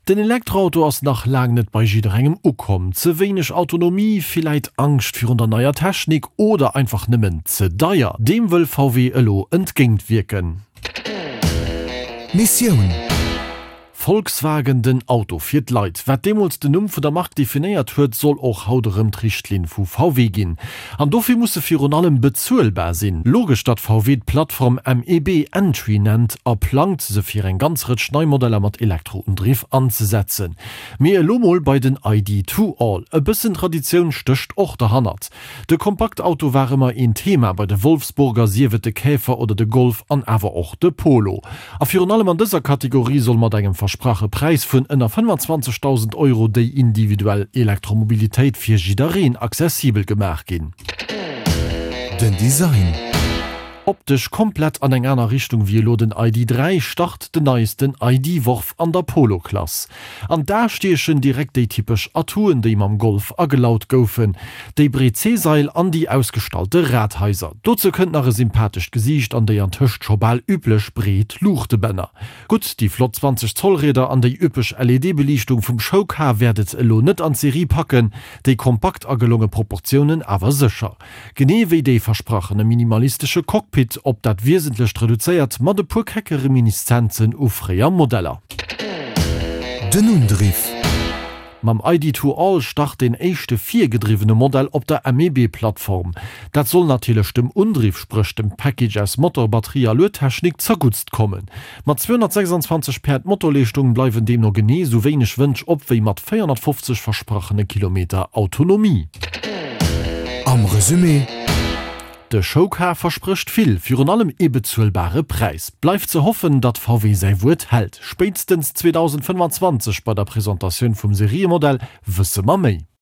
Den Elektroauto ass nach laang net bei jidderengem ukomm. Ze wéineg Autonomie, villäit Angscht virun der neier Technik oder einfach nëmmen ze deier. Deem wëll VW elo entgéint wierken. Missioun. Volkswagen, den Auto fir d'Leit. Wat deemools den Numm vun der Mark definéiert huet, soll och haut erëm d'Richtlinn vu VW ginn. An dofir muss se virun allem bezuelbar sinn. Logesch, datt VW d'Plattform MEB Entry nennt a plangt, se fir eng ganz Rëtsch nei Modeller mat Elektroundriff anzesetzen. Mee elo mol bei den ID To All. E bëssen Traditioun stécht och derhannert. De Kompaktauto war ëmmer een Thema bei de Wolfsburger, sief et de Käfer oder de Golf an awer och de Polo. A virun allem an dëser Kategorie soll mat engem versprache Präis vun ënner 25.000 Euro déi individuell Elektromobilitéit fir jiddereen accessibel gemaach ginn. Den Design. Optesch komplett an eng aner Richtung wéi elo den ID. 3 start den neiesten ID-Worf an der Polo-Klass. An d'A stiechen direkt déi typesch Atouen, déi mam Golf agelaut goufen, déi breet C-Sail an déi ausgestallte Radhaiser. Dozou kënnt nach e sympathescht Gesiicht an déi antëscht scho bal üblech breet Luuchtebänner. Gutt, déi flott 20 Zoll Rieder an déi üppeg LED-Beliichtung vum Showcar wäert et elo net an d'Serie packen, déi kompakt a gelonge Proportiounen awer sécher. Genee wéi dee versprachene minimalistesche Cockpit, op dat Wiesentlecht reduzéiert, mat e puer kecke Reminiszenzen u fréier Modeller. Den Undriff. Mam ID.2 All start deen éischte virgedriwwene Modell op der MEB-Plattform. Dat soll natierlech dem Undriff, spréch dem Package aus Motor, Batterie a Luedtechnik, zerguttst kommen. Mat 226 Päerd Motorleeschtung bleiwen deemno genee sou wéineg Wënsch op wéi mat 450 versprachene Kilometer Autonomie. Am Resumé. De Showcar versprécht vill, virun allem ee bezuelbare Präis. Bleift ze hoffen, datt VW säi Wuert hält. Spéitstens 2025 bei der Presentatioun vum Seriemodell wësse mer méi.